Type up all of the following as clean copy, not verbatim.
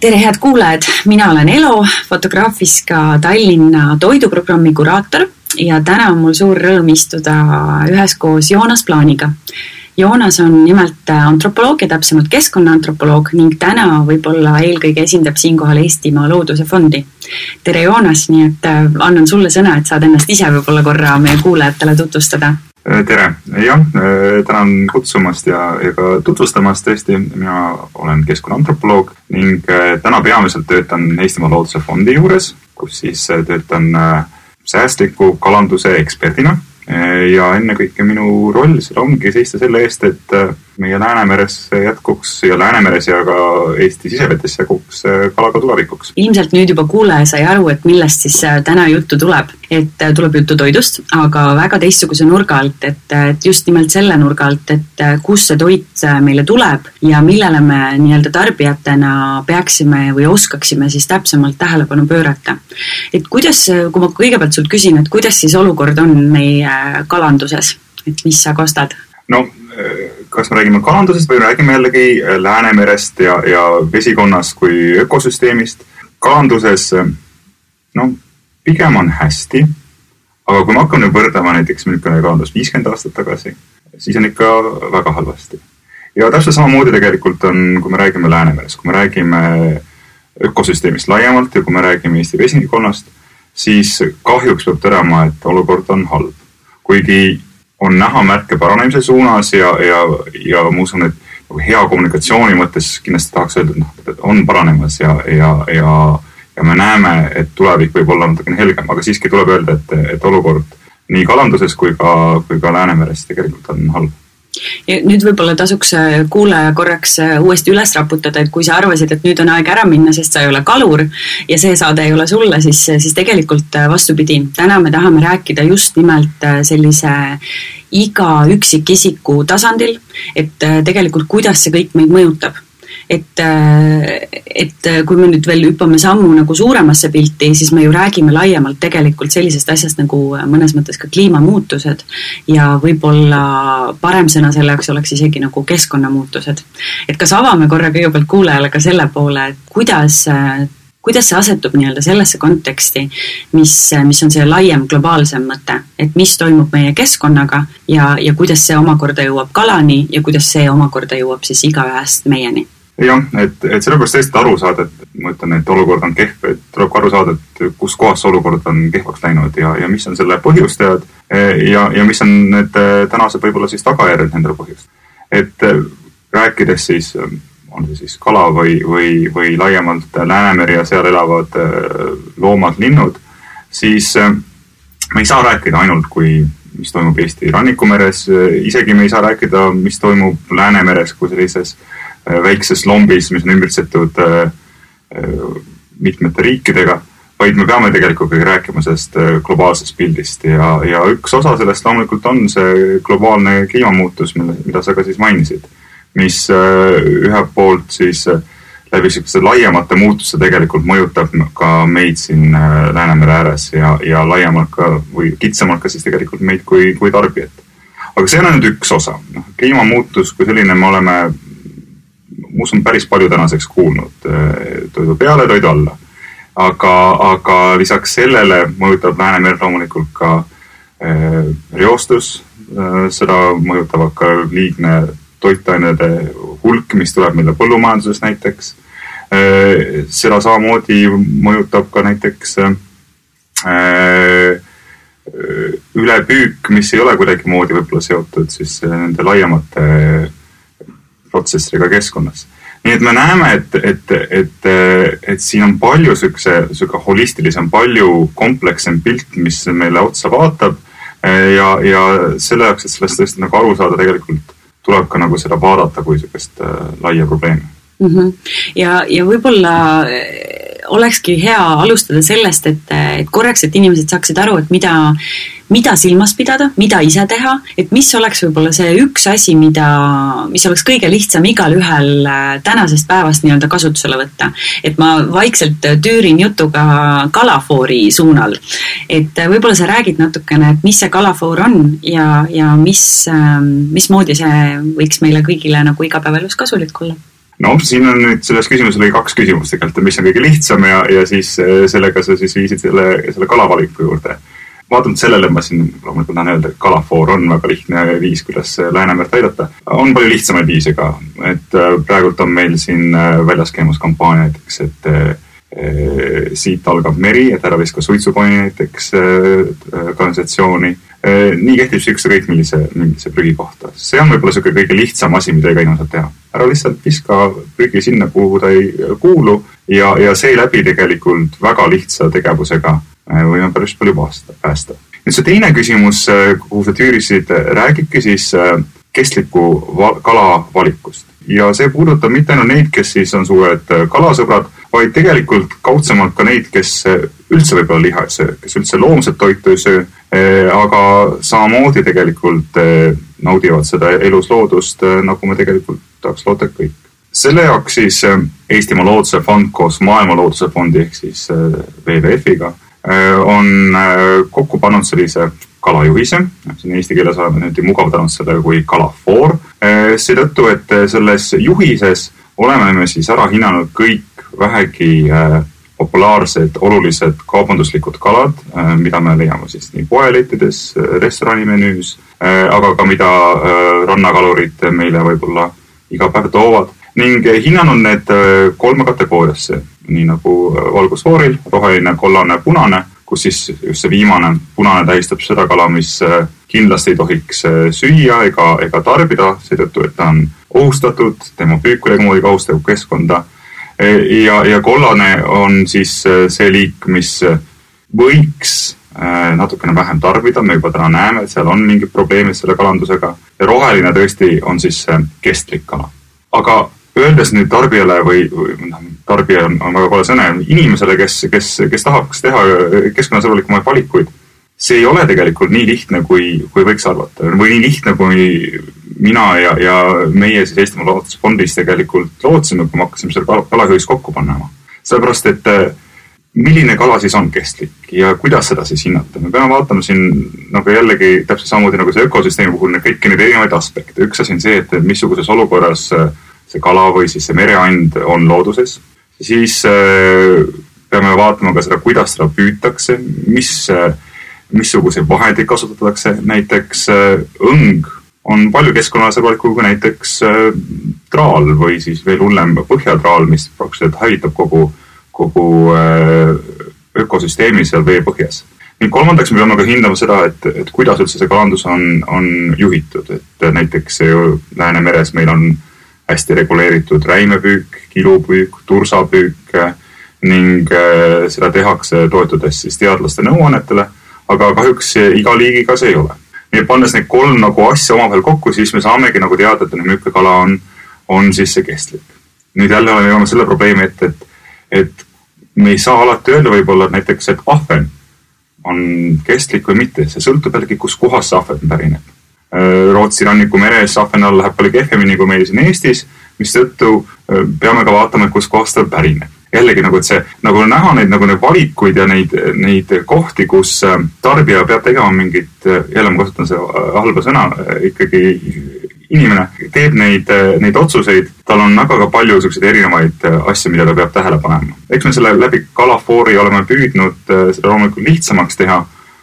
Tere head kuulajad, mina olen Elo, Fotograafiska Tallinna toiduprogrammi kuraator ja täna on mul suur rõõm istuda üheskoos Joonas Plaaniga. Joonas on nimelt antropoloog ja täpsemalt keskkonnaantropoloog ning täna võib-olla eelkõige esindab siinkohal Eestimaa Looduse Fondi. Tere Joonas, nii et annan sulle sõna, et saad ennast ise võib-olla korra meie kuulajatele tutvustada. Tere, jah, tänan kutsumast ja ka tutvustamast tõesti. Mina olen keskkonnaantropoloog ning täna peamiselt töötan Eestimaa Looduse Fondi juures, kus siis töötan säästliku kalanduse eksperdina. Ja ennekõike minu roll seal ongi seista selle eest, et meie Läänemeres jätkuks ja Läänemeres ja ka Eesti sisevetes jätkuks kalaga tulevikuks. Ilmselt nüüd juba kuulaja sai aru, et millest siis täna juttu tuleb. Et tuleb juttu toidust, aga väga teistsuguse nurga alt, et just nimelt selle nurga alt, et kus see toit meile tuleb ja millele me nii-öelda tarbijatena peaksime või oskaksime siis täpsemalt tähelepanu pöörata. Et kuidas, kui ma kõigepealt sult küsin, et kuidas siis olukord on meie kalanduses, et mis sa kostad? No, kas me räägime kalandusest või räägime jällegi Läänemerest ja vesikonnast kui ökosüsteemist? Kalanduses, pigem on hästi, aga kui me hakkame võrdlema näiteks kalandus 50 aastat tagasi, siis on ikka väga halvasti. Ja täpselt samamoodi tegelikult on, kui me räägime Läänemerest, kui me räägime ökosüsteemist laiemalt ja kui me räägime Eesti vesikonnast, siis kahjuks peab tõdema, et olukord on halb. Kuigi on näha märke paranemise suunas ja ma usun, et hea kommunikatsiooni mõttes kindlasti tahaks öelda, et on paranemas ja me näeme, et tulevik võib olla natukene helgem, aga siiski tuleb öelda, et olukord nii kalanduses kui ka Läänemeres tegelikult on halb. Ja nüüd võib-olla tasuks kuulaja korraks uuesti üles raputada, et kui sa arvasid, et nüüd on aeg ära minna, sest sa ei ole kalur ja see saade ei ole sulle, siis tegelikult vastupidi. Täna me tahame rääkida just nimelt sellise iga üksikisiku tasandil, et tegelikult kuidas see kõik meid mõjutab. Et kui me nüüd veel hüppame sammu nagu suuremasse pilti, siis me ju räägime laiemalt tegelikult sellisest asjast nagu mõnes mõttes ka kliimamuutused ja võib-olla parem sõna selleks oleks isegi nagu keskkonnamuutused. Et kas avame korra kõigepealt kuulajale ka selle poole, et kuidas see asetub nii-öelda sellesse konteksti, mis on see laiem globaalsem mõte, et mis toimub meie keskkonnaga ja kuidas see omakorda jõuab kalani ja kuidas see omakorda jõuab siis igaühest meieni. Jah, et sellepärast tõesti aru saada, et ma ütlen, et olukord on kehv, et tuleb aru saada, et kus kohas olukord on kehvaks läinud ja mis on selle põhjustajad ja mis on need tänased võib-olla siis tagajärjed nendele põhjust. Et rääkides siis, on see siis kala või laiemalt Läänemeri ja seal elavad loomad, linnud, siis me ei saa rääkida ainult mis toimub Eesti rannikumeres, isegi me ei saa rääkida, mis toimub Läänemeres kui sellises väikses lombis, mis on ümbritsetud mitmete riikidega, vaid me peame tegelikult rääkima sellest globaalsest pildist ja üks osa sellest loomulikult on see globaalne kliimamuutus, mida sa ka siis mainisid, mis ühelt poolt siis läbi selliste laiemate muutuste tegelikult mõjutab ka meid siin Läänemere ääres ja laiemalt ka või kitsamalt ka siis tegelikult meid kui tarbijat. Aga see on nüüd üks osa. Kliimamuutus kui selline me oleme usun päris palju tänaseks kuulnud toidu peale, toidu alla. Aga lisaks sellele mõjutab Läänemere loomulikult ka reostus, seda mõjutavad ka liigne toitainede hulk, mis tuleb meile põllumajanduses näiteks. Seda samamoodi mõjutab ka näiteks ülepüük, mis ei ole kuidagi moodi võib-olla seotud siis nende laiemate protsessidega keskkonnas. Nii et me näeme, et siin on palju süke holistilisem, palju komplekssem pilt, mis meile otsa vaatab ja selle jaoks, et sellest tõesti nagu aru saada, tegelikult tuleb ka nagu seda vaadata kui sükest laia probleemi. Ja võib-olla olekski hea alustada sellest, et korraks, et inimesed saaksid aru, et mida silmas pidada, mida ise teha, et mis oleks võib-olla see üks asi, mis oleks kõige lihtsam igal ühel tänasest päevast nii-öelda kasutusele võtta. Et ma vaikselt tüürin jutuga kalafoori suunal. Et võib-olla sa räägid natukene, et mis see kalafoor on ja mismoodi see võiks meile kõigile nagu igapäevalus kasulik olla? No siin on nüüd selles küsimuses oli 2 küsimust tegelikult, mis on kõige lihtsam ja siis sellega sa siis viisid selle kalavaliku juurde. Vaatamalt sellele ma siin loomulikult tahan öelda, et kalafoor on väga lihtne viis, kuidas Läänemerd aidata. On palju lihtsamaid viise ka, et praegult on meil siin väljas käimus kampaania näiteks, et siit algab meri, et ära viska suitsukoni näiteks kanalisatsiooni. Nii kehtib see kõik millise prügi kohta. See on võib-olla selline kõige lihtsam asi, mida iga inimene saab teha. Ära lihtsalt viska prügi sinna, kuhu ta ei kuulu ja see läbi tegelikult väga lihtsa tegevusega võime päris palju päästa. Nüüd see teine küsimus, kuhu sa tüürisid, räägibki siis kestliku kala valikust. Ja see puudutab mitte ainult neid, kes siis on suured kalasõbrad, vaid tegelikult kaudsemalt ka neid, kes üldse võib-olla liha ei söö, kes üldse loomset toitu ei söö, aga samamoodi tegelikult naudivad seda elusloodust, nagu me tegelikult tahaks loota kõik. Selle jaoks siis Eestimaa Looduse Fond koos Maailma Looduse Fondi ehk siis WWF-iga on kokku pannud sellise kalajuhise, siin eesti keeles oleme nüüd mugavdanud selle kui kalafoor, seetõttu, et selles juhises oleme me siis ära hinnanud kõik vähegi populaarsed, olulised kaubanduslikud kalad, mida me leiame siis nii poeleitides, restoranimenüüs, aga ka mida rannakalurid meile võib-olla iga päev toovad ning hinnanud need 3 kategooriasse, nii nagu valgusfooril, roheline, kollane, punane, kus siis just see viimane punane tähistab seda kala, mis kindlasti ei tohiks süüa ega tarbida, seetõttu, et ta on ohustatud, tema püük kuidagi moodi kahustab keskkonda. Ja kollane on siis see liik, mis võiks natukene vähem tarbida, me juba täna näeme, et seal on mingid probleemid selle kalandusega. Ja roheline tõesti on siis kestlik kala. Aga öeldes nüüd tarbijale või tarbija on väga kole sõne, inimesele, kes tahaks teha keskkonnasõbralikumaid valikuid, see ei ole tegelikult nii lihtne, kui võiks arvata. Või nii lihtne, kui mina ja meie siis Eestimaa Looduse Fondis tegelikult lootsime, kui me hakkasime selle kalahüüs kokku panema. Sellepärast, et milline kala siis on kestlik ja kuidas seda siis hinnata? Me peame vaatama siin nagu jällegi täpselt samamoodi nagu see ökosüsteemi puhul kõiki neid erinevaid aspekte. Üks asi on see, et missuguses olukorras see kala või siis see mereand on looduses. Siis peame vaatama ka seda, kuidas seda püütakse, missuguseid vahendeid kasutatakse. Näiteks õng on palju keskkonnasõbralikum kui näiteks traal või siis veel hullem põhjatraal, mis praktiliselt hävitab kogu ökosüsteemi seal vee põhjas. Ning kolmandaks me peame ka hindama seda, et kuidas üldse see kalandus on juhitud. Et näiteks Läänemeres meil on hästi reguleeritud räimepüük, kilupüük, tursapüük ning seda tehakse toetudes siis teadlaste nõuannetele, aga kahjuks iga liigiga see ei ole. Nii pannes neid 3 nagu asja omavahel kokku, siis me saamegi nagu teada, et milline kala on siis see kestlik. Nüüd jälle oleme selle probleemi, et me ei saa alati öelda võib-olla näiteks, et ahven on kestlik või mitte. See sõltub jällegi, kus kohas see ahven pärineb. Rootsi ranniku meres ahven all läheb palju kehvemini kui meil siin Eestis, mis tõttu peame ka vaatama, kus kohas ta pärineb. Jällegi nagu, et see nagu näha neid valikuid ja neid kohti, kus tarbija peab tegema mingit, jälle ma kasutan see halba sõna, ikkagi inimene teeb neid otsuseid, tal on väga palju selliseid erinevaid asju, mida ta peab tähele panema. Eks me selle läbi kalafoori oleme püüdnud seda loomulikult lihtsamaks teha,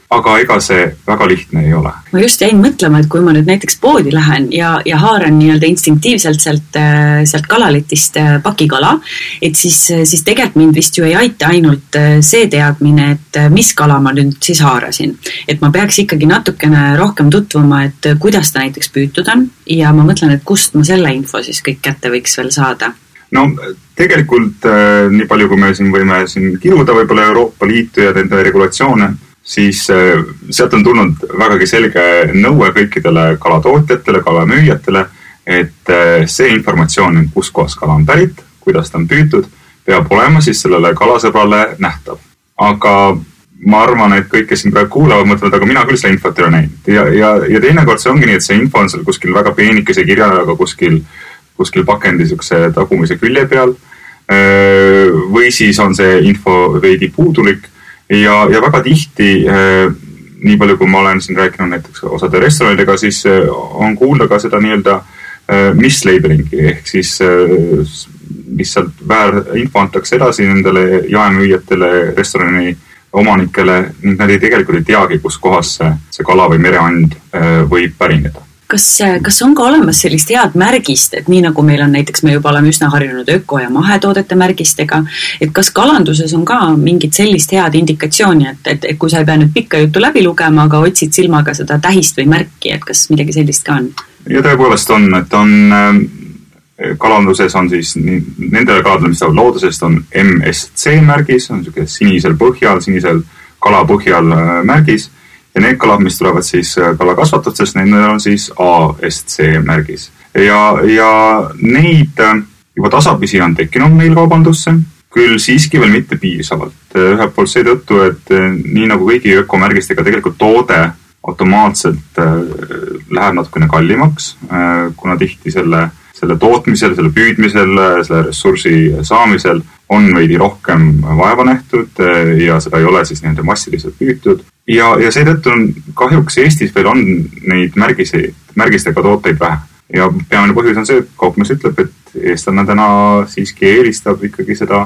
aga ega see väga lihtne ei ole. Ma just jäin mõtlema, et kui ma nüüd näiteks poodi lähen ja haaran nii-öelda instinktiivselt sealt kalaletist pakikala, et siis tegelikult mind vist ju ei aita ainult see teadmine, et mis kala ma nüüd siis haarasin. Et ma peaks ikkagi natukene rohkem tutvuma, et kuidas ta näiteks püütud on ja ma mõtlen, et kust ma selle info siis kõik kätte võiks veel saada. No tegelikult nii palju, kui me siin võime kiruda võib-olla Euroopa Liitu ja nende regulatsioone, siis sealt on tulnud vägagi selge nõue kõikidele kalatootjatele, kalamüüjatele, et see informatsioon, kus kohas kala on pärit, kuidas ta on püütud, peab olema siis sellele kalasõbrale nähtav. Aga ma arvan, et kõik, kes siin praegu kuulavad, mõtlevad, aga mina küll seda infot ei ole näinud. Ja teinekord see ongi nii, et see info on seal kuskil väga peenikese kirjaga kuskil pakendi tagumise külje peal või siis on see info veidi puudulik. Ja väga tihti, nii palju kui ma olen siin rääkinud näiteks osade restoranidega, siis on kuulda ka seda nii-öelda mislabelingi ehk siis lihtsalt info antakse edasi nendele jaemüüjatele, restorani omanikele ning nad tegelikult ei teagi, kus kohas see kala või mereand võib pärineda. Kas on ka olemas sellist head märgist, et nii nagu meil on näiteks, me juba oleme üsna harjunud öko- ja mahetoodete märgistega, et kas kalanduses on ka mingit sellist head indikatsiooni, et kui sa ei pea nüüd pikka juttu läbi lugema, aga otsid silmaga seda tähist või märki, et kas midagi sellist ka on? Ja tõepoolest on, et kalanduses on siis nendele kaladele, mis saavad loodusest, on MSC märgis, on sinisel kala põhjal märgis. Ja need kalad, mis tulevad siis kalakasvatustest, nendel on siis ASC märgis. Ja neid juba tasapisi on tekkinud meil kaubandusse, küll siiski veel mitte piisavalt. Ühelt poolt seetõttu, et nii nagu kõigi ökomärgistega tegelikult toode automaatselt läheb natukene kallimaks, kuna tihti selle tootmisel, selle püüdmisel, selle ressursi saamisel on veidi rohkem vaeva nähtud ja seda ei ole siis nende massiliselt püütud. Ja seetõttu on kahjuks Eestis veel on neid märgistega tooteid vähe. Ja peamine põhjus on see, et kaupmees ütleb, et eestlane täna siiski eelistab ikkagi seda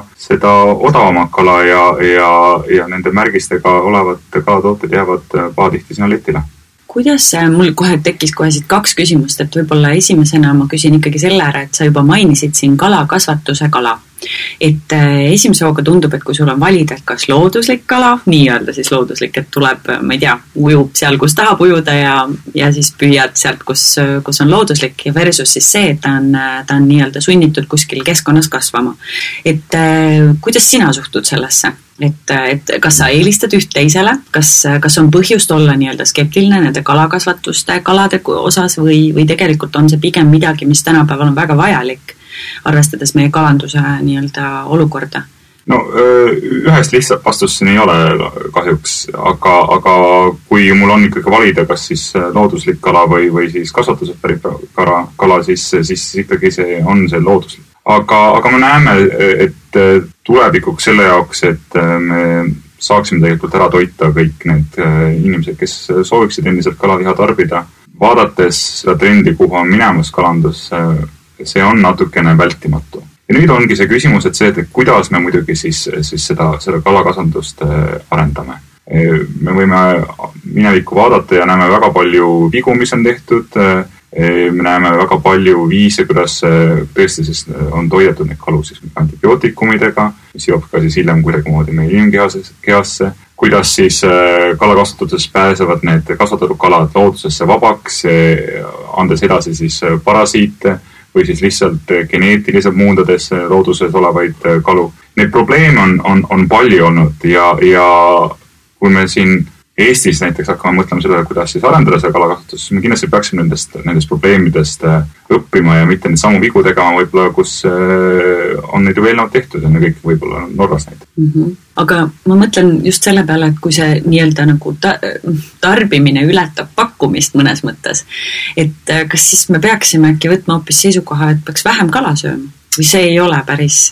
odavamat kala ja nende märgistega olevat kalatooted jäävad pahatihti sinna letile. Kuidas mul kohe tekkis siit 2 küsimust, et võib-olla esimesena ma küsin ikkagi selle ära, et sa juba mainisid siin kalakasvatuse kala. Et esimese hooga tundub, et kui sul on valida, et kas looduslik kala, nii-öelda siis looduslik, et tuleb, ma ei tea, ujub seal, kus tahab ujuda ja siis püüad sealt, kus on looduslik ja versus siis see, et ta on nii-öelda sunnitud kuskil keskkonnas kasvama. Et kuidas sina suhtud sellesse? Et kas sa eelistad üht teisele, kas on põhjust olla nii-öelda skeptiline nende kalakasvatuste kalade osas või tegelikult on see pigem midagi, mis tänapäeval on väga vajalik, arvestades meie kalanduse nii-öelda olukorda? No ühest lihtsalt vastuseni ei ole kahjuks, aga kui mul on ikkagi valida, kas siis looduslik kala või siis kasvatusest pärit kala, siis ikkagi see on see looduslik. Aga me näeme, et tulevikuks selle jaoks, et me saaksime tegelikult ära toita kõik need inimesed, kes sooviksid endiselt kalaliha tarbida. Vaadates seda trendi, kuhu on minemas kalandus, see on natukene vältimatu. Ja nüüd ongi see küsimus, et see, et kuidas me muidugi siis seda kalakasvandust arendame. Me võime minevikku vaadata ja näeme väga palju vigu, mis on tehtud. Me näeme väga palju viise, kuidas tõesti siis on toidetud neid kalu siis antibiootikumidega, mis jõuab ka siis hiljem kuidagimoodi meie inimkehasse, kuidas siis kalakasvatuses pääsevad need kasvatatud kalad loodusesse vabaks, andes edasi siis parasiite või siis lihtsalt geneetiliselt muundades looduses olevaid kalu. Need probleeme on palju olnud ja kui me siin Eestis näiteks hakkame mõtlema selle, kuidas siis arendada seda kalakasvatus, me kindlasti peaksime nendest probleemidest õppima ja mitte neid samu vigu tegema võib-olla, kus on neid ju eelnevalt tehtud ja ne kõik võib-olla Norras näiteks. Aga ma mõtlen just selle peale, et kui see nii-öelda nagu tarbimine ületab pakkumist mõnes mõttes, et kas siis me peaksime äkki võtma hoopis seisukoha, et peaks vähem kala sööma või see ei ole päris...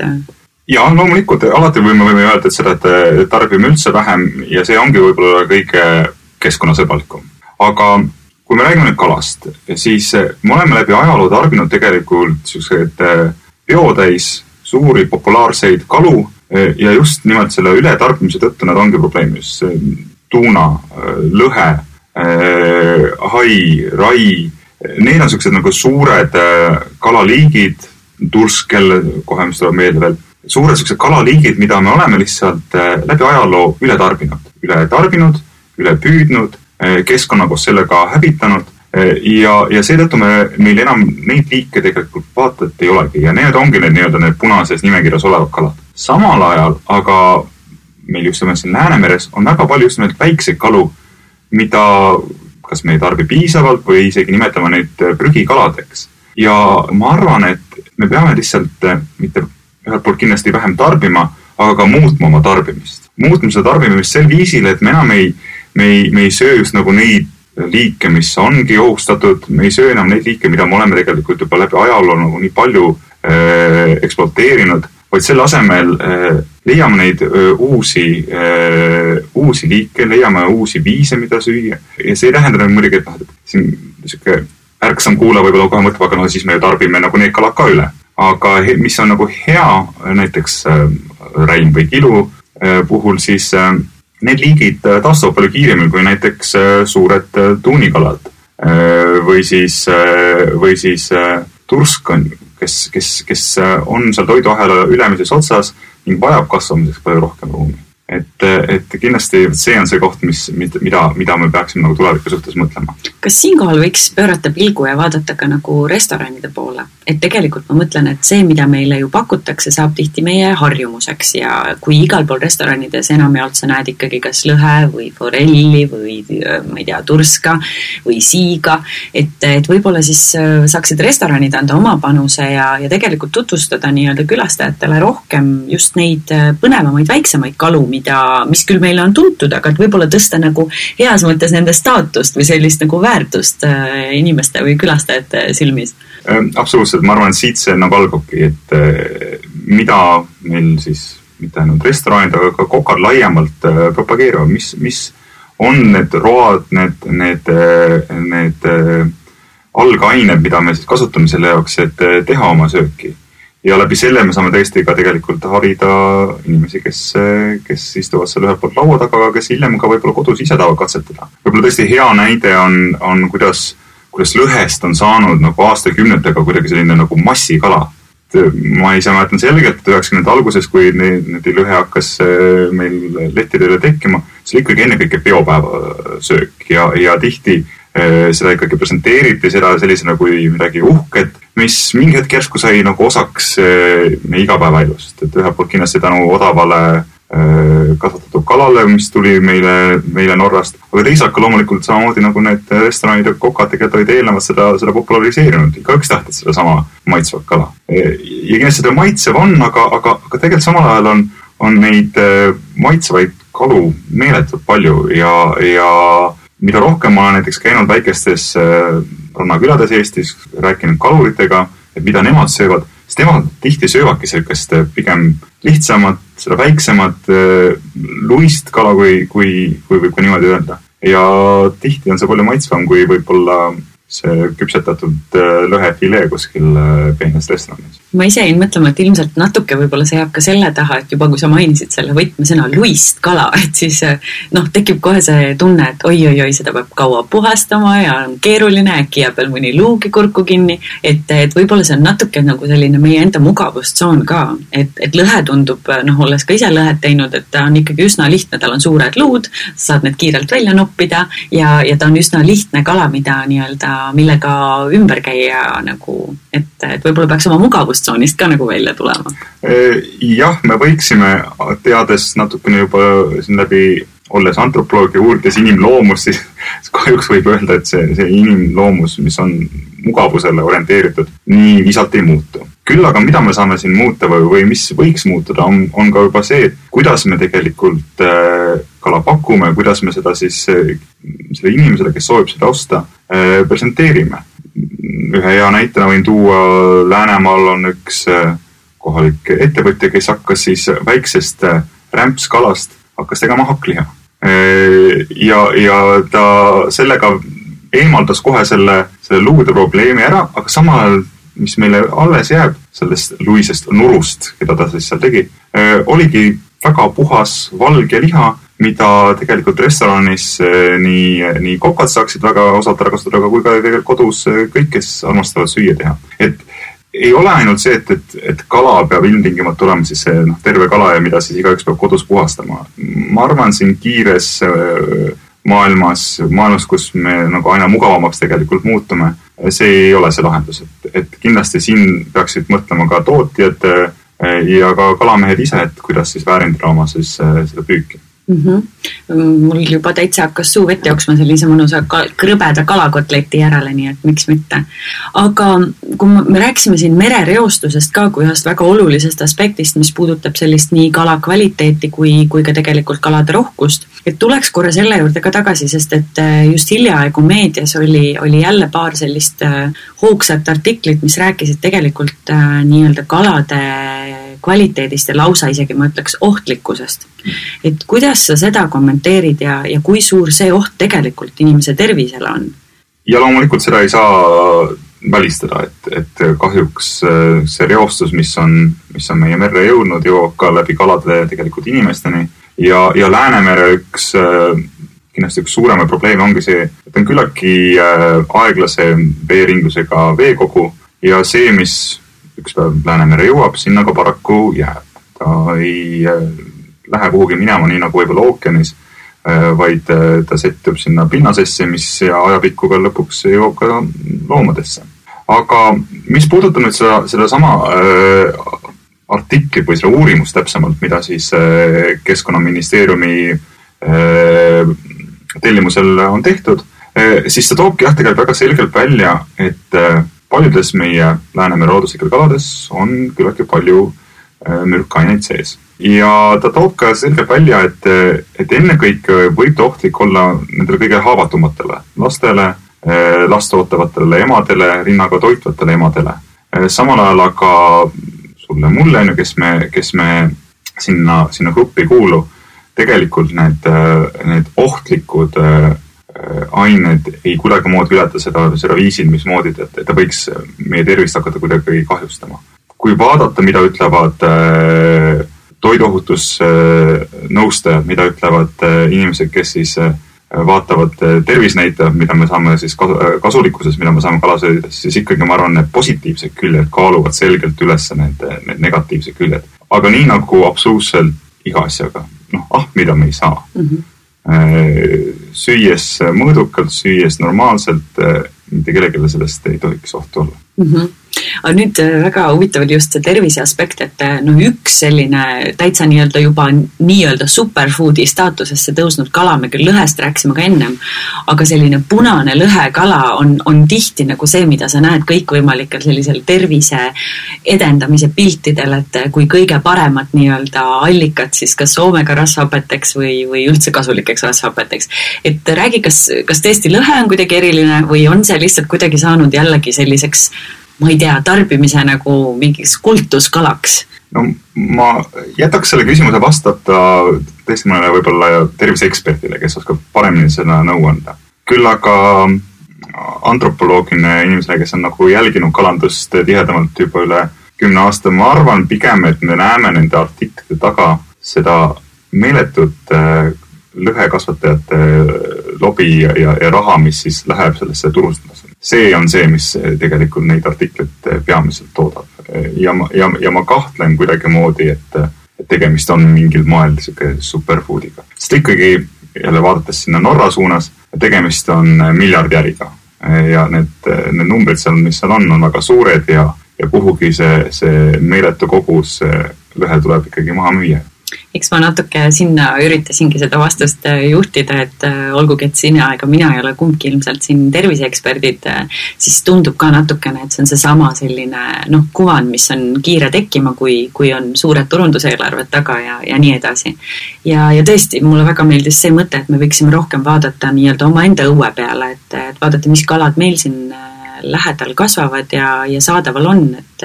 Ja loomulikult, alati võime öelda, et seda, et tarbime üldse vähem ja see ongi võib-olla kõige keskkonnasõbralikum. Aga kui me räägime nüüd kalast, siis me oleme läbi ajaloo tarbinud tegelikult sellised biotäis suuri populaarseid kalu ja just nimelt selle ületarbimise tõttu nad ongi probleemis. Tuuna, lõhe, hai, rai, need on sellised nagu suured kalaliigid, turskel, kohe mis tuleb meelde veel, suured sellised kalaliigid, mida me oleme lihtsalt läbi ajaloo ületarbinud, ülepüüdnud, keskkonna koos sellega hävitanud ja seetõttu meil enam neid liike tegelikult vaatat ei olegi ja need ongi need punases nimekirjas olevad kalad. Samal ajal, aga meil just siin Läänemeres on väga palju just need väikseid kalu, mida kas me ei tarbi piisavalt või isegi nimetame neid prügikaladeks. Ja ma arvan, et me peame lihtsalt mitte ühelt poolt kindlasti vähem tarbima, aga ka muutma oma tarbimist. Muutma seda tarbimist sel viisil, et me enam ei söö just nagu neid liike, mis ongi ohustatud, me ei söö enam neid liike, mida me oleme tegelikult juba läbi ajaloo nagu nii palju ekspluateerinud, vaid selle asemel leiame neid uusi liike, leiame uusi viise, mida süüa. Ja see ei tähenda muidugi, et siin ärksam kuulaja võib-olla kohe mõtleb, aga no siis me ju tarbime nagu need kalad ka üle. Aga mis on nagu hea, näiteks räim või kilu puhul, siis need liigid taastuvad palju kiiremini kui näiteks suured tuunikalad või siis tursk, kes on seal toiduahela ülemises otsas ning vajab kasvamiseks palju rohkem ruumi. Et kindlasti see on see koht, mida me peaksime nagu tuleviku suhtes mõtlema. Kas siinkohal võiks pöörata pilgu ja vaadata ka nagu restoranide poole? Et tegelikult ma mõtlen, et see, mida meile ju pakutakse, saab tihti meie harjumuseks ja kui igal pool restoranides enamjaolt sa näed ikkagi kas lõhe või forelli või ma ei tea, turska või siiga, et võib-olla siis saaksid restoranid anda oma panuse ja tegelikult tutvustada nii-öelda külastajatele rohkem just neid põnevamaid, väiksemaid kalu, mis küll meile on tuntud, aga et võib-olla tõsta nagu heas mõttes nende staatust või sellist nagu väärtust inimeste või külastajate silmis. Absoluutselt, ma arvan, et siit see nagu algabki, et mida meil siis mitte ainult restoranid, aga ka kokad laiemalt propageerivad, mis on need road, need algained, mida me siis kasutame selle jaoks, et teha oma sööki. Ja läbi selle me saame tõesti ka tegelikult harida inimesi, kes istuvad seal ühelt poolt laua taga, aga kes hiljem ka võib-olla kodus ise tahavad katsetada. Võib-olla tõesti hea näide on kuidas lõhest on saanud nagu aastakümnetega kuidagi selline nagu massikala. Ma ise mäletan selgelt, et 90. alguses, kui need lõhe hakkas meil lettidele tekkima, see oli ikkagi ennekõike peopäeva söök ja tihti seda ikkagi presenteeriti seda sellisena kui midagi uhket, mis mingi hetk järsku sai nagu osaks meie igapäevaelust. Et ühelt poolt kindlasti tänu odavale kasvatatud kalale, mis tuli meile Norrast, aga teisalt ka loomulikult samamoodi nagu need restoranid ja kokad tegelikult olid eelnevalt seda populariseerinud. Igaüks tahtis seda sama maitsvat kala. Ja kindlasti seda maitsev on, aga tegelikult samal ajal on neid maitsevaid kalu meeletult palju ja mida rohkem ma olen näiteks käinud väikestes rannakülades Eestis, rääkinud kaluritega, et mida nemad söövad, siis nemad tihti söövadki sellist pigem lihtsamat, seda väiksemat luist kala, kui võib ka niimoodi öelda. Ja tihti on see palju maitsvam, kui võib-olla see küpsetatud lõhefilee kuskil peenes restoranis. Ma ise jäin mõtlema, et ilmselt natuke võib-olla see jääb ka selle taha, et juba kui sa mainisid selle võtmesõna luist kala, et siis tekib kohe see tunne, et oi, seda peab kaua puhastama ja on keeruline, äkki jääb veel mõni luugi kurku kinni, et võib-olla see on natuke nagu selline meie enda mugavustsoon ka, et lõhe tundub, olles ka ise lõhet teinud, et ta on ikkagi üsna lihtne, tal on suured luud, saad need kiirelt välja noppida ja ta on üsna lihtne kala, millega ümber käia nagu, et võib-olla peaks oma mugavustsoonist ka nagu välja tulema. Jah, me võiksime, teades natukene juba siin läbi, olles antropoloog ja uurides inimloomus, siis kahjuks võib öelda, et see inimloomus, mis on mugavusele orienteeritud, nii visalt ei muutu. Küll aga mida me saame siin muuta või mis võiks muutuda, on ka juba see, kuidas me tegelikult kala pakume, kuidas me seda siis selle inimesele, kes soovib seda osta, presenteerime. Ühe hea näitena võin tuua, Läänemaal on üks kohalik ettevõtja, kes hakkas siis väiksest rämpskalast hakkas tegema hakkliha. Ja ta sellega eemaldas kohe selle luude probleemi ära, aga samal, mis meile alles jääb sellest luisest nurust, keda ta siis seal tegi, oligi väga puhas valge liha, mida tegelikult restoranis nii kokad saaksid väga osalt ära kasutada, aga kui ka tegelikult kodus kõik, kes armastavad süüa teha. Et ei ole ainult see, et kala peab ilmtingimata olema siis see terve kala ja mida siis igaüks peab kodus puhastama. Ma arvan siin kiires maailmas, kus me nagu aina mugavamaks tegelikult muutume, see ei ole see lahendus. Et kindlasti siin peaksid mõtlema ka tootjad ja ka kalamehed ise, et kuidas siis väärindada oma siis seda püüki. Mul juba täitsa hakkas suu vett jooksma sellise mõnusa krõbeda kalakotleti järele, nii et miks mitte. Aga kui me rääkisime siin merereostusest ka kui ühest väga olulisest aspektist, mis puudutab sellist nii kala kvaliteeti kui ka tegelikult kalade rohkust, et tuleks korra selle juurde ka tagasi, sest et just hiljaaegu meedias oli jälle paar sellist hoogsat artiklit, mis rääkisid tegelikult nii-öelda kalade kvaliteedist ja lausa isegi ma ütleks ohtlikkusest. Et kuidas sa seda kommenteerid ja kui suur see oht tegelikult inimese tervisele on? Ja loomulikult seda ei saa välistada, et kahjuks see reostus, mis on meie merre jõudnud, jõuab ka läbi kalade tegelikult inimesteni. Ja Läänemere kindlasti üks suurema probleem ongi see, et on küllaki aeglase veeringlusega veekogu ja see, mis üks päev Läänemere jõuab, sinna ka paraku jääb. Ta ei lähe kuhugi minema nii nagu võib-olla ookeanis, vaid ta settub sinna pinnasesse, mis ajapikku ka lõpuks jõuab ka loomadesse. Aga mis puudutab nüüd seda sama artiklit või seda uurimust täpsemalt, mida siis Keskkonnaministeeriumi tellimusel on tehtud, siis ta toobki tegelikult väga selgelt välja, et paljudes meie Läänemere looduslikel kalades on küllaki palju mürkaineid sees. Ja ta toob ka selgelt välja, et ennekõike võib ta ohtlik olla nendele kõige haavatumatele lastele, last ootavatele emadele, rinnaga toitvatele emadele. Samal ajal aga sulle mulle, kes me sinna gruppi kuulu, tegelikult need ohtlikud ained ei kuidagi moodi ületa seda viisil, mismoodi, et ta võiks meie tervist hakata kuidagi kahjustama. Kui vaadata, mida ütlevad toiduohutusnõustajad, mida ütlevad inimesed, kes siis vaatavad tervisnäitajad, mida me saame siis kasulikkuses, mida me saame kalasöödides, siis ikkagi ma arvan, need positiivsed küljed kaaluvad selgelt üles need negatiivsed küljed. Aga nii nagu absoluutselt iga asjaga, mida me ei saa. Süües mõõdukalt, süües normaalselt, mitte kellelegi sellest ei tohiks ohtu olla. Aga nüüd väga huvitav oli just see tervise aspekt, et üks selline täitsa juba superfoodi staatusesse tõusnud kala, me küll lõhest rääksime ka ennem, aga selline punane lõhekala on tihti nagu see, mida sa näed kõikvõimalikel sellisel tervise edendamise piltidel, et kui kõige paremat allikat siis kas Soomega rasvhapeteks või üldse kasulikeks rasvhapeteks. Et räägi, kas tõesti lõhe on kuidagi eriline või on see lihtsalt kuidagi saanud jällegi selliseks, ma ei tea, tarbimise nagu mingiks kultuskalaks? No ma jätaks selle küsimuse vastata tõesti mõnele võib-olla terviseeksperdile, kes oskab paremini seda nõu anda. Küll aga antropoloogine inimesele, kes on nagu jälginud kalandust tihedamalt juba üle 10 aasta, ma arvan pigem, et me näeme nende artiklite taga seda meeletut lõhekasvatajate lobi ja raha, mis siis läheb sellesse turustamisele. See on see, mis tegelikult neid artiklit peamiselt toodab. Ja ma kahtlen kuidagi moodi, et tegemist on mingil moel superfoodiga. Sest ikkagi jälle vaadates sinna Norra suunas, tegemist on miljardjäriga. Ja need numbrid seal, mis seal on väga suured ja kuhugi see meeletu kogus lõhe tuleb ikkagi maha müüa. Eks ma natuke sinna üritasingi seda vastust juhtida, et olgugi, et sina ega mina ei ole kumbki ilmselt siin terviseeksperdid, siis tundub ka natukene, et see on seesama selline kuvand, mis on kiire tekkima, kui on suured turunduseelarved taga ja nii edasi. Ja tõesti, mulle väga meeldis see mõte, et me võiksime rohkem vaadata nii-öelda oma enda õue peale, et vaadata, mis kalad meil siin lähedal kasvavad ja saadaval on, et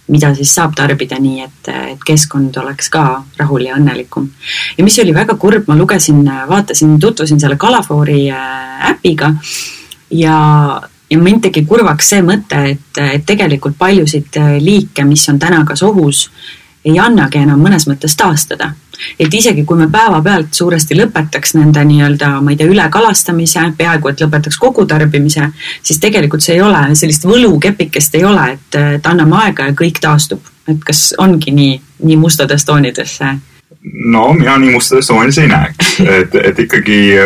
mida siis saab tarbida nii, et keskkond oleks ka rahul ja õnnelikum. Ja mis oli väga kurb, ma tutvusin selle Kalafoori äpiga ja mind tegi kurvaks see mõte, et tegelikult paljusid liike, mis on täna kas ohus, ei annagi enam mõnes mõttes taastada. Et isegi kui me päeva pealt suuresti lõpetaks nende ma ei tea, ülekalastamise, peaaegu et lõpetaks kogu tarbimise, siis tegelikult see ei ole, sellist võlukepikest ei ole, et anname aega ja kõik taastub. Et kas ongi nii mustades toonides? No, mina nii mustades toonides ei näeks. Et ikkagi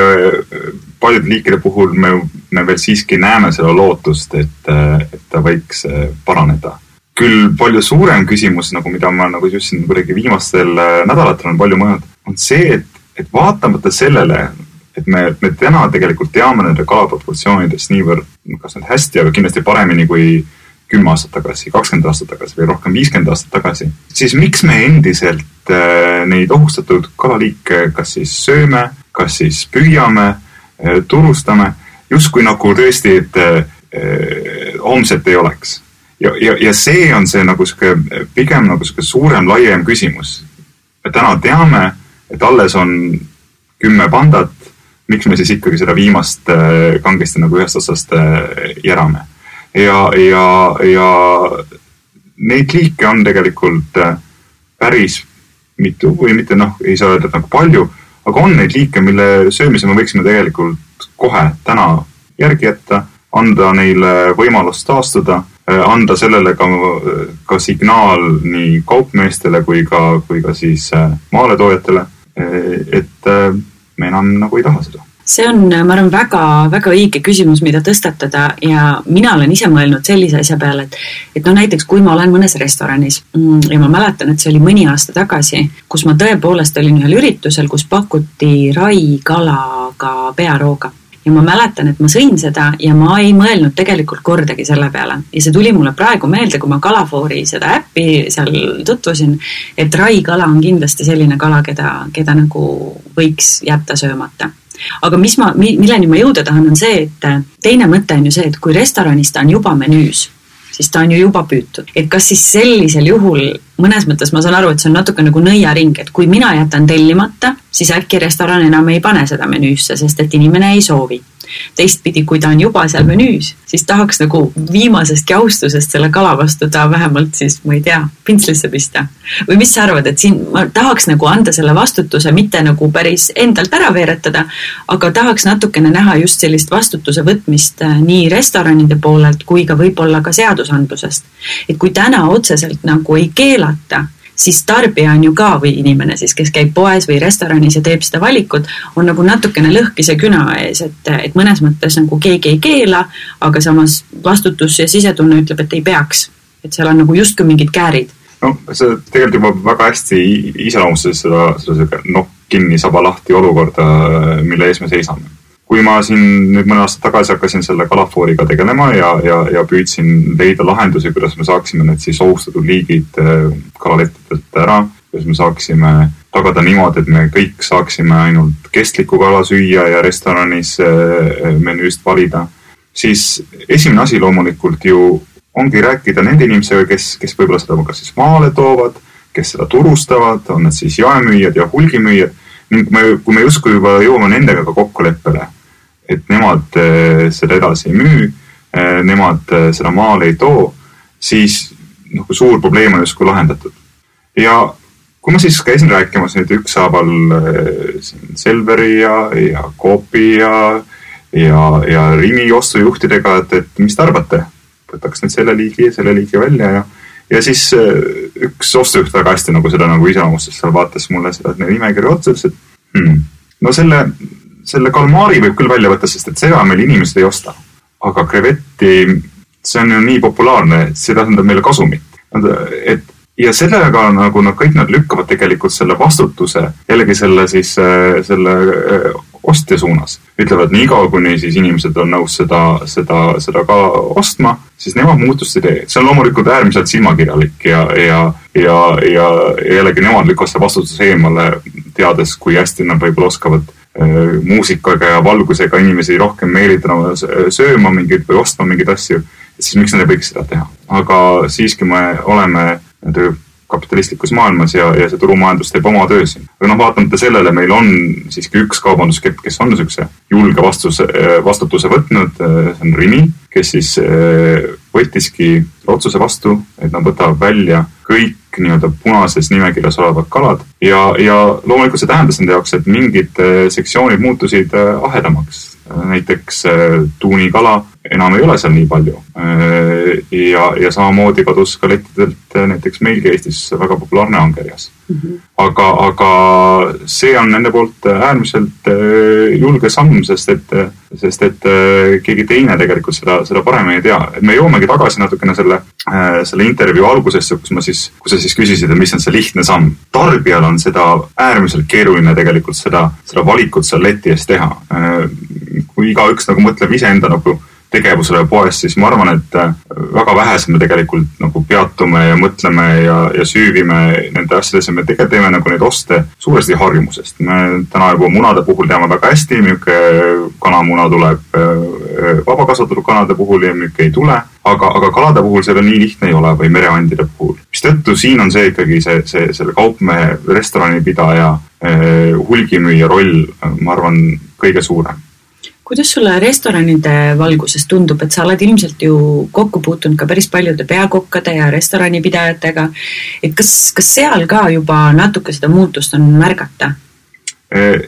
paljude liikide puhul me veel siiski näeme seda lootust, et ta võiks paraneda. Küll palju suurem küsimus, mida ma just siin kuidagi viimastel nädalatel on palju mõelnud, on see, et vaatamata sellele, et me täna tegelikult teame nende kalaproportsioonidest niivõrd, kas need hästi, aga kindlasti paremini kui 10 aastat tagasi, 20 aastat tagasi või rohkem 50 aastat tagasi, siis miks me endiselt neid ohustatud kalaliike kas siis sööme, kas siis püüame, turustame, justkui nagu tõesti, et homset ei oleks. Ja see on see pigem suurem, laiem küsimus. Me täna teame, et alles on 10 pandat, miks me siis ikkagi seda viimast kangesti nagu ühest otsast järame. Ja neid liike on tegelikult päris mitu või mitte, ei saa öelda nagu palju, aga on neid liike, mille söömise me võiksime tegelikult kohe täna järgi jätta, anda neile võimalust taastuda, anda sellele ka signaal nii kaupmeestele kui ka siis maaletoojatele, et me enam nagu ei taha seda. See on, ma arvan, väga, väga õige küsimus, mida tõstatada ja mina olen ise mõelnud sellise asja peale, et näiteks kui ma olen mõnes restoranis ja ma mäletan, et see oli mõni aasta tagasi, kus ma tõepoolest olin ühel üritusel, kus pakuti raikalaga pearooga. Ja ma mäletan, et ma sõin seda ja ma ei mõelnud tegelikult kordagi selle peale. Ja see tuli mulle praegu meelde, kui ma Kalafoori seda äppi seal tutvusin, et raikala on kindlasti selline kala, keda nagu võiks jätta söömata. Aga milleni ma jõuda tahan on see, et teine mõte on ju see, et kui restoranis ta on juba menüüs, siis ta on ju juba püütud. Et kas siis sellisel juhul, mõnes mõttes ma saan aru, et see on natuke nagu nõiaring, et kui mina jätan tellimata, siis äkki restoran enam ei pane seda menüüsse, sest et inimene ei soovi. Teistpidi, kui ta on juba seal menüüs, siis tahaks nagu viimasest jaustusest selle kala vastu ta vähemalt siis, ma ei tea, pintslisse pista. Või mis sa arvad, et siin ma tahaks nagu anda selle vastutuse, mitte nagu päris endalt ära veeretada, aga tahaks natukene näha just sellist vastutuse võtmist nii restoranide poolelt kui ka võib-olla ka seadusandlusest. Et kui täna otseselt nagu ei keelata, siis tarbija on ju ka või inimene siis, kes käib poes või restoranis ja teeb seda valikut, on nagu natukene lõhkise küna ees, et mõnes mõttes nagu keegi ei keela, aga samas vastutus ja sisetunne ütleb, et ei peaks. Et seal on nagu justkui mingid käärid. No see tegelikult juba väga hästi iseloomustas seda kinni saba lahti olukorda, mille ees me seisame. Kui ma siin nüüd mõne aasta tagasi hakkasin selle Kalafooriga tegelema ja püüdsin leida lahendusi, kuidas me saaksime need siis ohustatud liigid kalalettidelt ära, kuidas me saaksime tagada niimoodi, et me kõik saaksime ainult kestlikku kala süüa ja restoranis menüüst valida, siis esimene asi loomulikult ju ongi rääkida nende inimesega, kes võib-olla seda ka siis maale toovad, kes seda turustavad, on need siis jaemüüjad ja hulgimüüjad, ning kui me justkui juba jõuame nendega ka kokkuleppele, et nemad seda edasi ei müü, nemad seda maale ei too, siis suur probleem on justkui lahendatud. Ja kui ma siis käisin rääkimas nüüd ükshaaval Selveri ja Coopi ja Rimi ostujuhtidega, et mis te arvate? Võtaks nüüd selle liigi välja ja siis üks ostujuht väga hästi nagu seda nagu iseloomustas, seal vaatas mulle seda nimekirja otsas, et no selle kalmaari võib küll välja võtta, sest et seda meil inimesed ei osta. Aga krevetti, see on ju nii populaarne, et see tähendab meile kasumit. Ja sellega nagu kõik nad lükkavad tegelikult selle vastutuse, jällegi selle ostja suunas. Ütlevad nii kaua, kuni siis inimesed on nõus seda ka ostma, siis nemad muutust ei tee. See on loomulikult äärmiselt silmakirjalik ja jällegi nemad lükkavad seda vastutuse eemale, teades, kui hästi nad võib-olla oskavad muusikaga ja valgusega inimesi rohkem meelitama sööma mingeid või ostma mingeid asju, siis miks nad ei võiks seda teha. Aga siiski me oleme kapitalistlikus maailmas ja see turumajandus teeb oma töö siin. Aga vaatamata sellele meil on siiski üks kaubanduskepp, kes on niisuguse julge vastutuse võtnud, see on Rimi, kes siis võttiski otsuse vastu, et nad võtavad välja kõik nii-öelda punases nimekirjas olevad kalad ja loomulikult see tähendas nende jaoks, et mingid sektsioonid muutusid ahedamaks. Näiteks tuunikala enam ei ole seal nii palju ja samamoodi kadus ka lettidelt näiteks meilgi Eestis väga populaarne angerjas. Aga see on nende poolt äärmiselt julge samm, sest et keegi teine tegelikult seda paremini ei tea. Et me joomegi tagasi natukene selle intervjuu algusesse, kus sa siis küsisid, et mis on see lihtne samm. Tarbijal on seda äärmiselt keeruline tegelikult seda valikut seal leti ees teha. Kui igaüks nagu mõtleb iseenda nagu tegevusele poes, siis ma arvan, et väga vähesed me tegelikult nagu peatume ja mõtleme ja süüvime nende asjadesse. Me tegelikult teeme nagu neid oste suuresti harjumusest. Me täna juba munade puhul teame väga hästi, müüke kanamuna tuleb vabakasvatatud kanade puhul ja müüke ei tule. Aga kalade puhul see nii lihtne ei ole või mereandide puhul. Mistõttu siin on see ikkagi selle kaupmehe, restoranipidaja, hulgimüüja roll, ma arvan, kõige suurem. Kuidas sulle restoranide valguses tundub, et sa oled ilmselt ju kokku puutunud ka päris paljude peakokkade ja restoranipidajatega, et kas seal ka juba natuke seda muutust on märgata?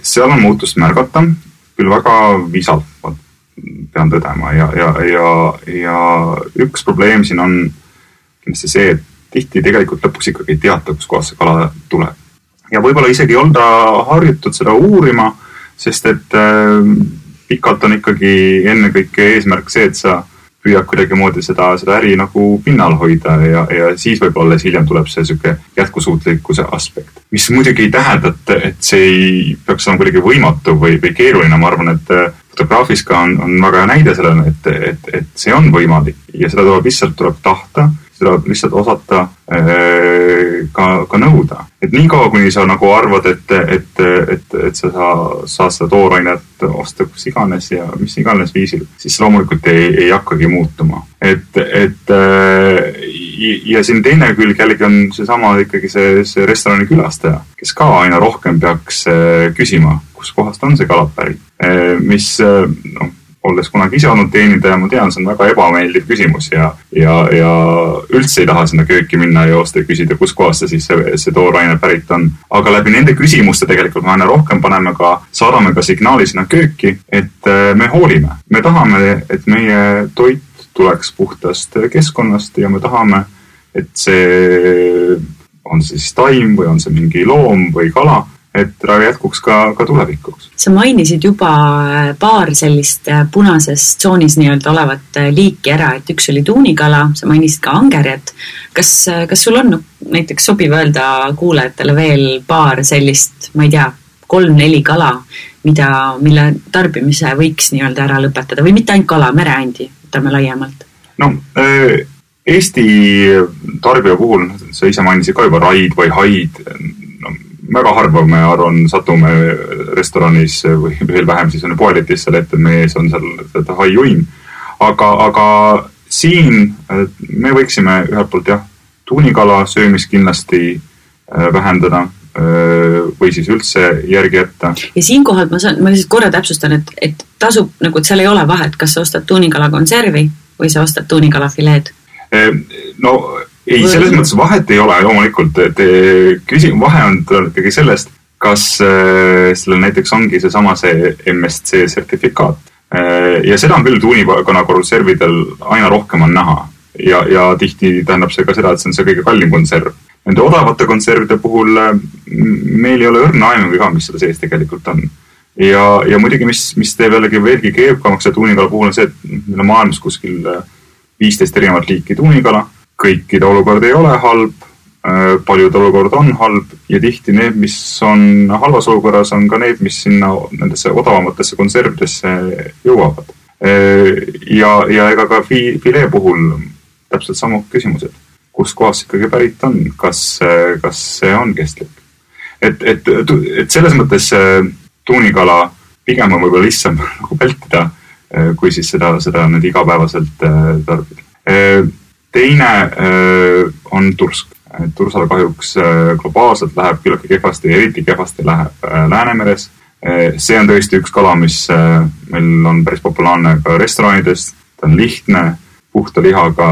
Seal on muutust märgata, küll väga visalt, pean tõdema ja üks probleem siin on kindlasti see, et tihti tegelikult lõpuks ikkagi ei teata, kus kohas see kala tuleb. Ja võib-olla isegi ei olda harjutud seda uurima, sest et pikalt on ikkagi ennekõike eesmärk see, et sa püüad kuidagi moodi seda äri nagu pinnal hoida ja siis võib-olla hiljem tuleb see selline jätkusuutlikkuse aspekt. Mis muidugi ei tähenda, et see ei peaks olema kuidagi võimatu või keeruline. Ma arvan, et fotograafis ka on väga näide sellele, et see on võimalik ja seda tuleb tahta, seda lihtsalt osata ka nõuda. Et nii kaua, kuni sa nagu arvad, et sa saad seda toorainet osta kus iganes ja mis iganes viisil, siis loomulikult ei hakkagi muutuma. Ja siin teine külg jällegi on seesama ikkagi see restorani külastaja, kes ka aina rohkem peaks küsima, kus kohast on see kala pärit. Mis olles kunagi ise olnud teenindaja, ma tean, see on väga ebameeldiv küsimus ja üldse ei taha sinna kööki minna ja joosta ja küsida, kus kohast see tooraine pärit on. Aga läbi nende küsimuste tegelikult me aina rohkem saadame ka signaali sinna kööki, et me hoolime. Me tahame, et meie toit tuleks puhtast keskkonnast ja me tahame, et see on siis taim või on see mingi loom või kala, et jätkuks ka tulevikuks. Sa mainisid juba paar sellist punases tsoonis nii-öelda olevat liiki ära, et üks oli tuunikala, sa mainisid ka angerjat. Kas sul on näiteks sobiv öelda kuulajatele veel paar sellist, ma ei tea, 3-4 kala, mille tarbimise võiks nii-öelda ära lõpetada või mitte ainult kala, mereandi, võtame laiemalt? No, Eesti tarbija puhul, sa ise mainisid ka juba raid või haid, väga harva me arvan satume restoranis või veel vähem siis on poeletis seal ette, meie ees on seal haiuim. Aga siin me võiksime ühelt poolt tuunikala söömist kindlasti vähendada või siis üldse järgi jätta. Ja siinkohal ma siis korra täpsustan, et tasub, nagu, et seal ei ole vahet, kas sa ostad tuunikala konservi või sa ostad tuunikala fileed? No ei, selles mõttes vahet ei ole loomulikult, vahe on ikkagi sellest, kas sellel näiteks ongi see MSC sertifikaat. Ja seda on küll tuunikala konservidel aina rohkem on näha ja tihti tähendab see ka seda, et see on see kõige kallim konserv. Nende odavate konservide puhul meil ei ole õrna aimugi ka, mis seda sees tegelikult on. Ja muidugi, mis teeb jällegi veelgi keerukamaks ja tuunikala puhul on see, et meil on maailmas kuskil 15 erinevat liiki tuunikala. Kõikide olukord ei ole halb, paljud olukord on halb ja tihti need, mis on halvas olukorras, on ka need, mis sinna nendesse odavamatesse konservidesse jõuavad. Ja ega ka filee puhul täpselt samu küsimused. Kus kohas ikkagi pärit on, kas see on kestlik. Et selles mõttes tuunikala pigem on võib-olla lihtsam nagu vältida, kui siis seda nüüd igapäevaselt tarbida. Teine on tursk. Tursal kahjuks globaalselt läheb küllaltki kehvasti, eriti kehvasti läheb Läänemeres. See on tõesti üks kala, mis meil on päris populaarne ka restoranides. Ta on lihtne, puhta lihaga,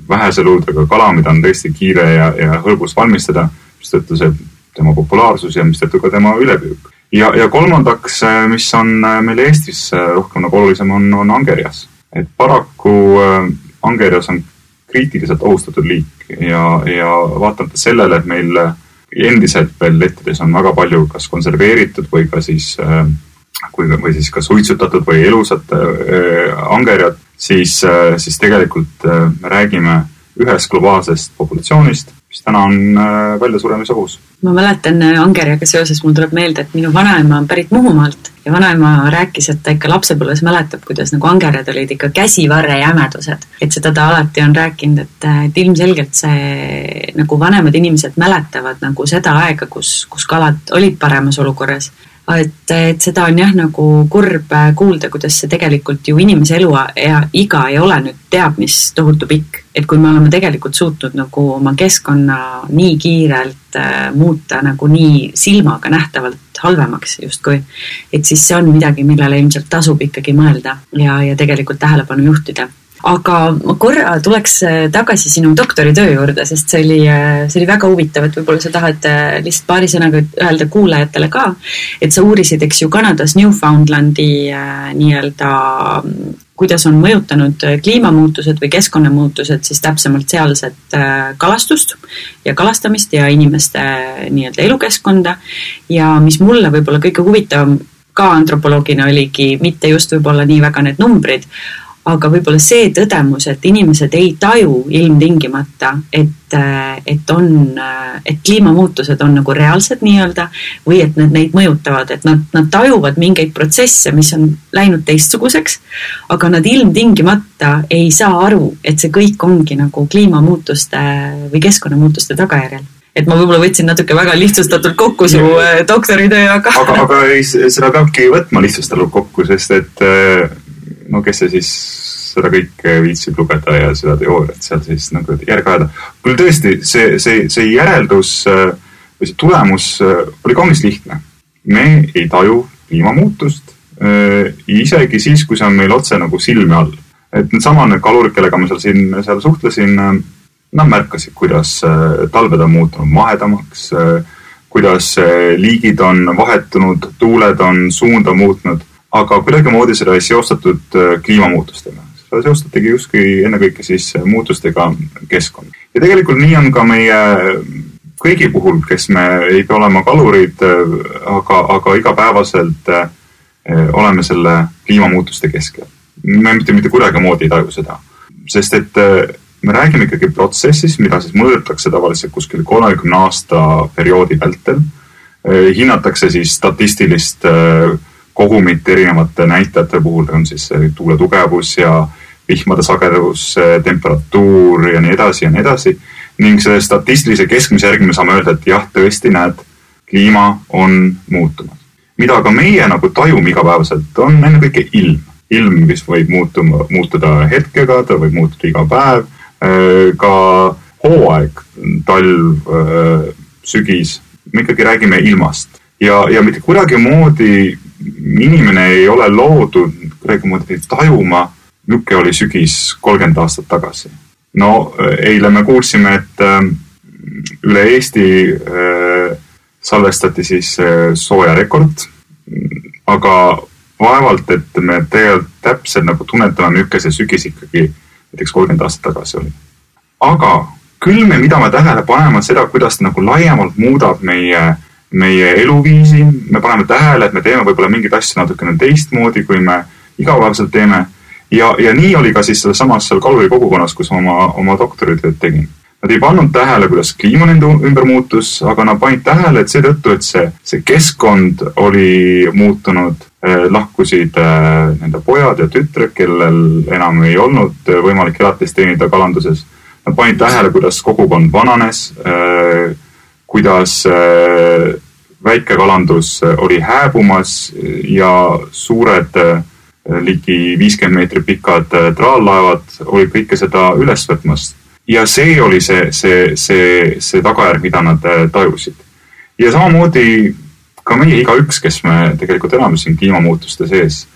vähese luudega kala, mida on tõesti kiire ja hõlbus valmistada, mis tõttu see tema populaarsus ja mis tõttu ka tema ülepüük. Ja kolmandaks, mis on meil Eestis rohkem nagu olulisem, on angerjas. Et paraku angerjas on kriitiliselt ohustatud liik ja vaatamata sellele, et meil endiselt veel lettides on väga palju kas konserveeritud või ka siis kas suitsutatud või elusat angerjat, siis tegelikult me räägime ühest globaalsest populatsioonist, mis täna on välja suremise ohus. Ma mäletan angerjaga seoses, mul tuleb meelde, et minu vanaema on pärit Muhumaalt ja vanaema rääkis, et ta ikka lapsepõlves mäletab, kuidas nagu angerjad olid ikka käsivarre jämedused. Et seda ta alati on rääkinud, et ilmselgelt see nagu vanemad inimesed mäletavad nagu seda aega, kus kalad olid paremas olukorras. Et seda on nagu kurb kuulda, kuidas see tegelikult ju inimese elu ja iga ei ole nüüd teab, mis tohutu pikk. Et kui me oleme tegelikult suutnud nagu oma keskkonna nii kiirelt muuta nagu nii silmaga nähtavalt halvemaks justkui. Et siis see on midagi, millele ilmselt tasub ikkagi mõelda ja tegelikult tähelepanu juhtida. Aga ma korra tuleks tagasi sinu doktoritöö juurde, sest see oli väga huvitav, et võib-olla sa tahad lihtsalt paari sõnaga öelda kuulajatele ka, et sa uurisid, eks ju, Kanadas Newfoundlandi nii-öelda, kuidas on mõjutanud kliimamuutused või keskkonnamuutused siis täpsemalt sealset kalastust ja kalastamist ja inimeste nii-öelda elukeskkonda ja mis mulle võib-olla kõige huvitavam ka antropoloogina oligi mitte just võib-olla nii väga need numbrid, aga võib-olla see tõdemus, et inimesed ei taju ilmtingimata, et kliimamuutused on nagu reaalsed nii-öelda või et need neid mõjutavad, et nad tajuvad mingeid protsesse, mis on läinud teistsuguseks, aga nad ilmtingimata ei saa aru, et see kõik ongi nagu kliimamuutuste või keskkonnamuutuste tagajärjel. Et ma võib-olla võtsin natuke väga lihtsustatult kokku su doktoritöö, aga seda peabki võtma lihtsustatult kokku, sest et no kes see siis seda kõike viitsib lugeda ja seda teooriat seal siis nagu järgi ajada. Küll tõesti, see järeldus või see tulemus oli kaunis lihtne. Me ei taju kliimamuutust isegi siis, kui see on meil otse nagu silme all. Et need samad kalurid, kellega ma seal suhtlesin, nad märkasid, kuidas talved on muutunud mahedamaks, kuidas liigid on vahetunud, tuuled on suunda muutnud, aga kuidagi moodi seda ei seostatud kliimamuutustega. Seda seostatigi justkui ennekõike siis muutustega keskkond. Ja tegelikult nii on ka meie kõigi puhul, kes me ei pea olema kalurid, aga igapäevaselt oleme selle kliimamuutuste keskel. Me mitte kuidagi moodi ei taju seda. Sest et me räägime ikkagi protsessis, mida siis mõõdetakse tavaliselt kuskil 30 aasta perioodi vältel. Hinnatakse siis statistilist kogumit erinevate näitajate puhul, on siis tuule tugevus ja vihmade sagedus, temperatuur ja nii edasi. Ning see statistilise keskmise järgi me saame öelda, et jah, tõesti näed, kliima on muutunud. Mida ka meie nagu tajume igapäevaselt, on ennekõike ilm. Ilm, mis võib muutuda hetkega, ta võib muutuda iga päev, ka hooaeg, talv, sügis. Me ikkagi räägime ilmast. Ja mitte kuidagi moodi inimene ei ole loodud kuidagi moodi tajuma, milline oli sügis 30 aastat tagasi. No, eile me kuulsime, et üle Eesti salvestati siis soojarekord, aga vaevalt, et me tegelikult täpselt nagu tunnetame, milline see sügis ikkagi näiteks 30 aastat tagasi oli. Aga küll mida me tähele paneme seda, kuidas nagu laiemalt muudab meie eluviisi, me paneme tähele, et me teeme võib-olla mingid asju natukene teistmoodi, kui me igapäevaselt teeme. Ja nii oli ka siis samas seal kaluri kogukonnas, kus oma doktoritööd tegin. Nad ei pannud tähele, kuidas kliima nende ümber muutus, aga nad panid tähele, et seetõttu, et see keskkond oli muutunud, lahkusid nende pojad ja tütred, kellel enam ei olnud võimalik elatist teenida kalanduses. Nad panid tähele, kuidas kogukond vananes, kuidas väikekalandus oli hääbumas ja suured ligi 50 meetrit pikad traallaevad oli kõike seda üles võtmas. Ja see oli see tagajärg, mida nad tajusid. Ja samamoodi ka meie igaüks, kes me tegelikult elame siin kliimamuutuste sees,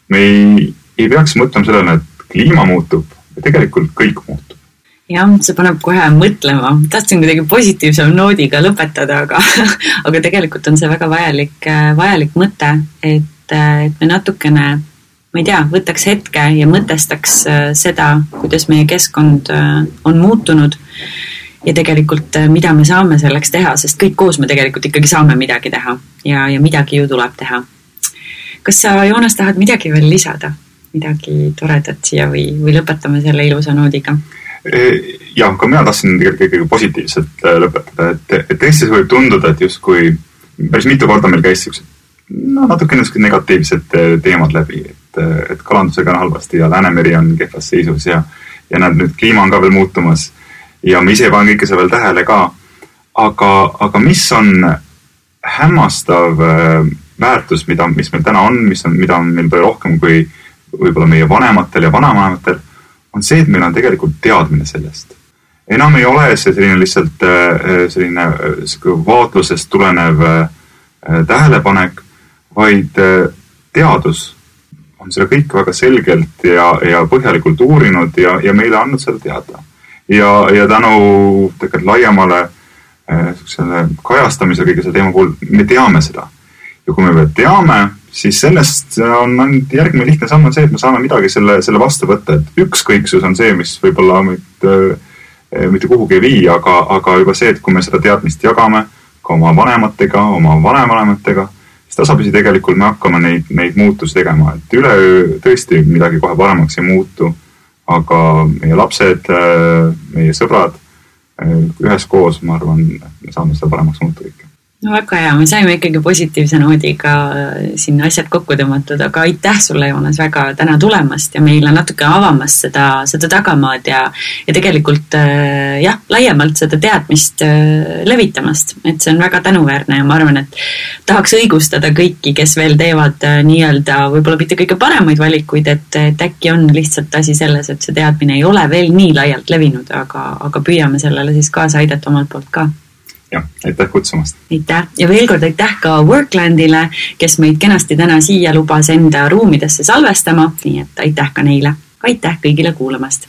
me ei peaks mõtlema sellele, et kliima muutub ja tegelikult kõik muutub. Jah, see paneb kohe mõtlema. Tahtsin kuidagi positiivsem noodiga lõpetada, aga tegelikult on see väga vajalik mõte, et me natukene, ma ei tea, võtaks hetke ja mõtestaks seda, kuidas meie keskkond on muutunud ja tegelikult mida me saame selleks teha, sest kõik koos me tegelikult ikkagi saame midagi teha ja midagi ju tuleb teha. Kas sa, Joonas, tahad midagi veel lisada? Midagi toredat siia või lõpetame selle ilusa noodiga? Jah, ka mina tahtsin tegelikult positiivselt lõpetada, et Eestis võib tunduda, et justkui päris mitu korda meil käis natuke negatiivsed teemad läbi, et kalandusega on halvasti ja Läänemeri on kehvas seisus ja nüüd kliima on ka veel muutumas ja me ise panen kõike see veel tähele ka, aga mis on hämmastav väärtus, mis meil täna on, mida on meil palju rohkem kui võib-olla meie vanematel ja vanavanematel, on see, et meil on tegelikult teadmine sellest. Enam ei ole see selline lihtsalt selline vaatlusest tulenev tähelepanek, vaid teadus on seda kõik väga selgelt ja põhjalikult uurinud ja meile andnud seda teada. Ja tänu tegelikult laiemale kajastamise kõige selle teema puhul me teame seda. Ja kui me teame, siis sellest on järgmine lihtne samm on see, et me saame midagi selle vastu võtta. Et ükskõiksus on see, mis võib-olla mitte kuhugi ei vii, aga juba see, et kui me seda teadmist jagame ka oma vanematega, oma vanemanematega, siis tasapisi tegelikult me hakkame neid muutusi tegema. Et üleöö tõesti midagi kohe paremaks ei muutu, aga meie lapsed, meie sõbrad üheskoos, ma arvan, me saame seda paremaks muuta kõike. No väga hea, me saime ikkagi positiivse noodiga siin asjad kokku tõmmatud, aga aitäh sulle, Joonas, väga täna tulemast ja meile natuke avamast seda tagamaad ja tegelikult laiemalt seda teadmist levitamast, et see on väga tänuväärne ja ma arvan, et tahaks õigustada kõiki, kes veel teevad nii-öelda võib-olla mitte kõige paremaid valikuid, et äkki on lihtsalt asi selles, et see teadmine ei ole veel nii laialt levinud, aga püüame sellele siis kaasa aidata omalt poolt ka. Jah, aitäh kutsumast. Aitäh ja veel kord aitäh ka Worklandile, kes meid kenasti täna siia lubas enda ruumidesse salvestama, nii et aitäh ka neile. Aitäh kõigile kuulamast.